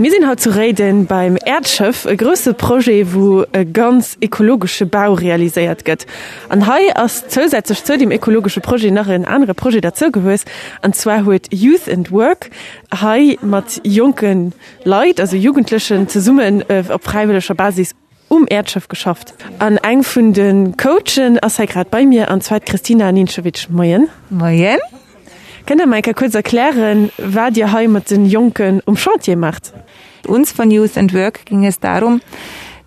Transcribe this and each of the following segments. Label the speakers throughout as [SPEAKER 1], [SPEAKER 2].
[SPEAKER 1] Mir sinn haut zu Réiden beim Äerdschëff, e grousse Projet, wou e ganz ekologesche Bau realiséiert gëtt. An hei ass zousätzlech zou deem ekologesche Projet nach en anere Projet derzougewuess, an zwar huet Youth and Work hei mat jonke Leit, also Jugendlechen, zesummen op fräiwëlleger Basis um Äerdschëff geschafft. An eng vun de Coachen ass hei grad bei mir, an zwar d'Christina Nincevic. Moien.
[SPEAKER 2] Moien.
[SPEAKER 1] Kënnt Der mer eng Kéier kuerz erklären, wat Dir hei mat de Jonken um Chantier maacht?
[SPEAKER 2] Uns von Youth and Work ging es darum,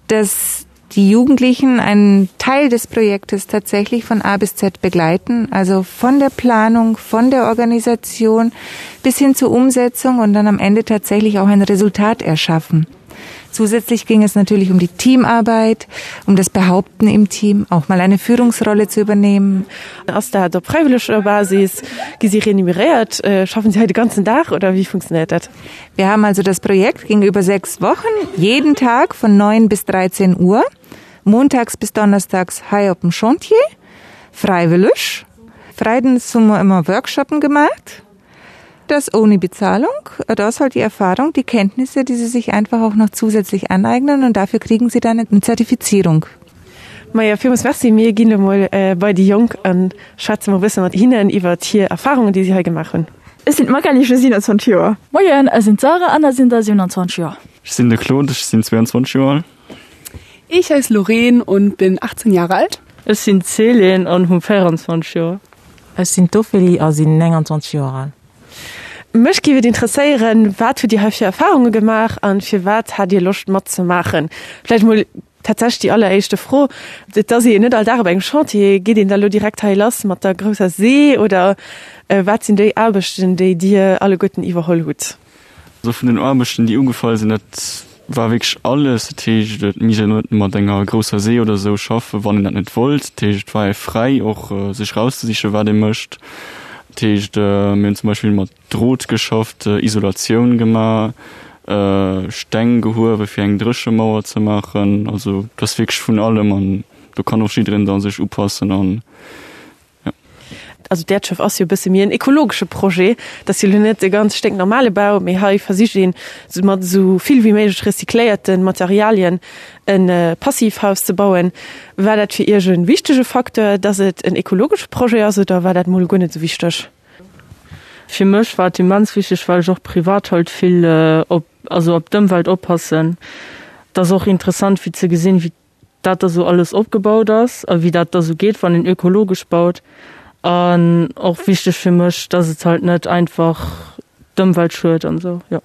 [SPEAKER 2] dass die Jugendlichen einen Teil des Projektes tatsächlich von A bis Z begleiten, also von der Planung, von der Organisation bis hin zur Umsetzung und dann am Ende tatsächlich auch ein Resultat erschaffen. Zusätzlich ging es natürlich um die Teamarbeit, um das Behaupten im Team, auch mal eine Führungsrolle zu übernehmen.
[SPEAKER 1] Ass dat op fräiwëlleger Basis? Gi si renumeréiert? Schaffen si hei de ganzen Dag oder wéi funktionéiert dat?
[SPEAKER 2] Wir haben also das Projekt ging über sechs Wochen, jeden Tag von 9 bis 13 Uhr, montags bis donnerstags hei op dem Chantier, fräiwëlleg. Freides hu mer ëmmer Workshoppen gemacht. Das ohne Bezahlung, da ist halt die Erfahrung, die Kenntnisse, die sie sich einfach auch noch zusätzlich aneignen und dafür kriegen sie dann eine Zertifizierung.
[SPEAKER 1] Maja, villmools Merci. Mir ginn elo mol bei déi Jonk a schwätze mol e bësse mat hinnen iwwert hir Erfarungen, déi si hei gemaach hunn.
[SPEAKER 3] Ech sinn d'Magali, ech hu 27 Joer.
[SPEAKER 4] Moien, ech sinn d'Sarah an ech sinn der 27 Joer.
[SPEAKER 5] Ech sinn de Claude, ech sinn 22 Joer al.
[SPEAKER 3] Ich heiße Loreen und bin 18 Jahre alt.
[SPEAKER 6] Ech sinn d'Céline an hu 24 Joer.
[SPEAKER 7] Ech sinn d'Ophélie a sinn 29 Joer al.
[SPEAKER 1] Mech géif et interesséieren, wat hutt Dir hei fir Erfarunge gemaach an firwat hat Dir Loscht matzemaachen? Vläicht mol tatsächlech déi alleréischte Fro, Et ass ee jo net all Dag op engem Chantier. Geet een da lo direkt hei lass mat der grousser See oder wat sinn déi Aarbechten, déi Dir alleguerten iwwerholl hutt?
[SPEAKER 5] Also vun den Aarbechten, déi ugefall sinn, dat war wierklech alles. Dat heescht, et misst een net mat enger grousser See oder esou schaffen, wann een dat net wollt. Dat heescht, et war ee fräi och sech erauszesichen, wat ee mécht. Dat heescht, mir hunn zum Beispill mat Drot geschafft, Isolatioun gemaach, Steng gehuewe fir eng Dréchemauer ze maachen. Also et ass wierklech vun allem an do kann och jiddereen da sech upassen an
[SPEAKER 1] Jo. Also d'Äerdschëff ass jo e bësse méi en ekologesche Projet. Dat ass jo elo net e ganz sténknormale Bau, mee hei versicht een, mat esou vill wéi méiglech recycléierte Materialien e Passivhaus ze bauen. War dat fir Iech e wichtege Facteur, dass et en ekologesche Projet ass oder war dat mol guer net esou wichteg?
[SPEAKER 6] Fir mech war et immens wichteg, well ech och privat halt vill op, also op d'Ëmwelt oppassen. Et ass och interessant fir ze gesinn, wéi dat da sou alles opgebaut ass a wéi dat da sou geet, wann een ökologesch baut. An och wichteg fir mech, dass et halt net einfach d'Ëmwelt schued an esou, jo.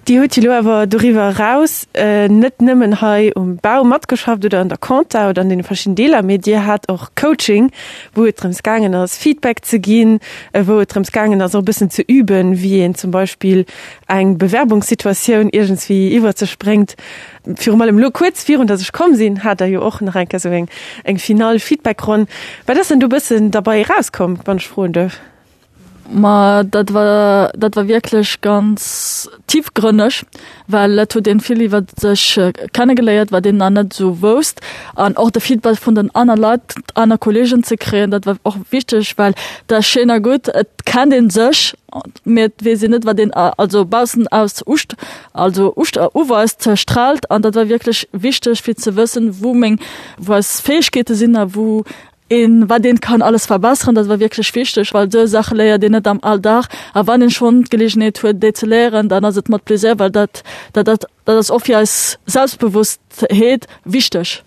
[SPEAKER 1] Dir hutt jo elo awer doriwwer eraus net nëmmen hei um Bau matgeschafft oder an der Compta oder an deene verschiddenen Deeler, mee Dir hat och Coaching, wou et drëms gaangen ass, Feedback ze ginn, wou et drëms gaangen ass, och e bëssen ze üben, wéi een zum Beispill eng Bewerbungssituatioun iergendswéi iwwer sech bréngt. Virum allem elo kuerz virun dass ech komm sinn, hat Der jo och nach eng Kéier esou eng eng final Feedbackronn. Wat ass denn do e bëssen derbei erauskomm, wann ech froen duerf?
[SPEAKER 4] Ma dat war dat war wierklech ganz tiefgrënneg, well et huet een vill iwwer sech kennegeléiert, wat een nach net esou wousst. An och de Feedback vun den aner Leit, aner Kolleegen ze kréien, dat war och wichteg, well dat ass schéin a gutt, et kennt een sech, mee et weess een net, wat een also baussen aus uscht also uscht uweist, straalt. An dat war wierklech wichteg fir ze wëssen, wou meng wou eis Fäegkeete sinn a wou een wat een kann alles verbesseren. Dat war wierklech wichteg, well esou Saache léiert een net am Alldag. A wann een schonn d'Geleegenheet huet, déi ze léieren, dann ass et mat Plaisir, well dat dat dat dat ass och fir eis Selbstbewosstheet wichteg.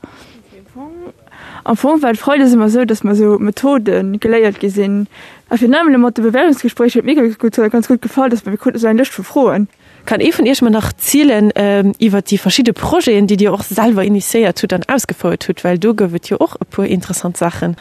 [SPEAKER 3] Am Fong war et freides ëmmer esou, datt mer esou Methode geléiert gi sinn. A virun allem elo mat de Bewerbungsgespréicher huet mir gutt ganz gutt gefall, datt mer mir kruten esou eng Lëscht vu Froen.
[SPEAKER 1] Kann ee vun Iech mer nach zielen iwwert déi verschidde Projeten, déi Dir och selwer initiéiert hutt an ausgefouert hutt, well do gouf et jo och e puer interessant Saachen.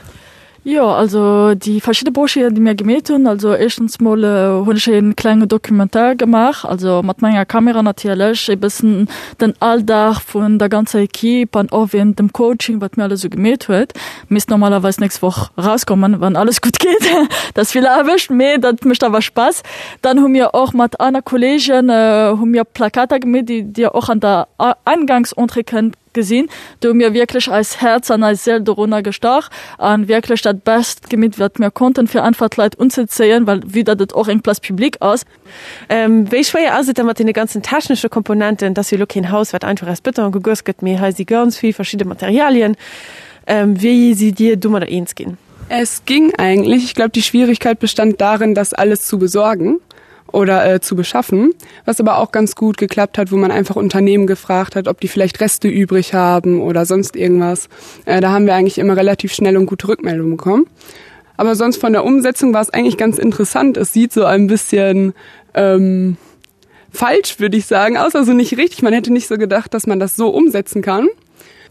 [SPEAKER 4] Jo, also déi verschidde Projeten, déi mir gemeet hunn, also éischtens mol hunn ech e klenge Documentaire gemaach, also mat menger Kamera natierlech, e bëssen den Alldag vun der ganzer Equipe an och wéinst dem Coaching, wat mir alles esou gemeet huet. Misst normalerweis nächst Woch erauskommen, wann alles gutt geet. Dat ass vill Aarbecht, mee dat mécht awer Spaass. Dann hu mir och mat aner Kolleegen hu mir Plakater gemeet, déi Dir och an der Eingangsentrée kënnt. Gesinn. Do hu mir wierklech eis Häerz an eis Séil dorunner gestach an wierklech dat Best gemeet, wat mir konnten, fir einfach d'Leit unzezéien, well vue datt et och eng Place publique ass.
[SPEAKER 1] Wéi schwéier ass et da mat deene ganzen technesche Komponenten? Et ass jo elo keen Haus, wat einfach aus Bëton gegoss gëtt, mee hei si ganz vill verschidde Materialien. Wéi sidd Dir domadder eens ginn?
[SPEAKER 8] Es ging eigentlich. Ich glaube, die Schwierigkeit bestand darin, das alles zu besorgen oder äh, zu beschaffen, was aber auch ganz gut geklappt hat, wo man einfach Unternehmen gefragt hat, ob die vielleicht Reste übrig haben oder sonst irgendwas. Äh, da haben wir eigentlich immer relativ schnell und gute Rückmeldungen bekommen. Aber sonst von der Umsetzung war es eigentlich ganz interessant. Es sieht so ein bisschen ähm, falsch, würde ich sagen, aus, also nicht richtig. Man hätte nicht so gedacht, dass man das so umsetzen kann.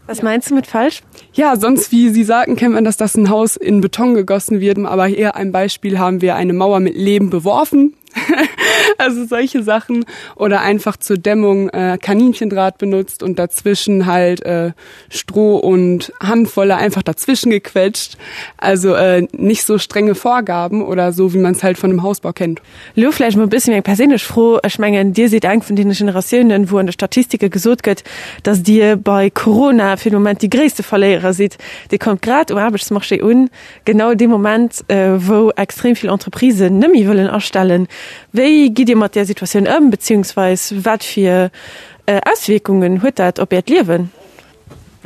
[SPEAKER 1] Was meinst du mit falsch?
[SPEAKER 8] Ja, sonst wie Sie sagten, kennt man, dass das ein Haus in Beton gegossen wird, aber hier ein Beispiel haben wir eine Mauer mit Leben beworfen. also solche Sachen oder einfach zur Dämmung äh, Kaninchendraht benutzt und dazwischen halt äh, Stroh und Handvolle einfach dazwischen gequetscht. Also äh, nicht so strenge Vorgaben oder so, wie man es halt von einem Hausbau kennt.
[SPEAKER 1] Lo vläicht mol e bëssi méi eng perséinlech Fro, Ech mengen, Dir sidd eng vun deene Generatiounen, wou an de Statistike gesot gëtt, datt Dir bei Corona fir de Moment déi gréisste Verléierer sidd. Dir kommt grad um Aarbechtsmarché un, genau dee Moment, wou extrem vill Entreprisen net méi wëllen astellen. Wéi gitt Dir mat där Situatioun ëm, beziehungsweis wat fir Auswierkungen huet dat op Äert Liewen?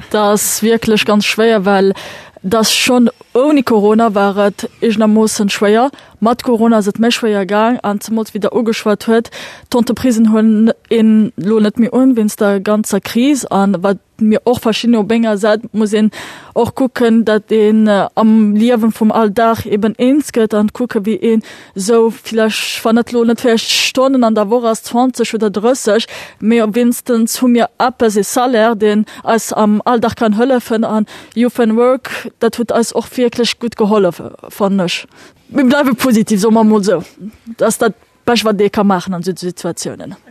[SPEAKER 4] Dat ass wierklech ganz schwéier, well dat schonn ouni Corona war et eegenermoossen schwéier. Mat Corona ass et méi schwéier gaang an zemools wéi Der ugeschwat huet, d'Entreprisen huelen een elo net méi un wéinst der ganzer Kris an wat mir och verschidden op enger Säit muss een och kucken, datt een am Liewen vum Alldag eben eens gëtt an kucke wéi een Sou villäicht, wann et lo net villäicht Stonnen an der Woch ass, 20 oder 30, mee wéinstens hu mir eppes, ee Salaire, deen eis am Alldag kann hëllefen. An Youth and Work, dat huet eis och wierklech gutt gehollef, fannen ech. Mir bleiwe positiv, soe mer emol sou. Dat ass dat Bescht, wat ee ka maachen an esou Situatiounen.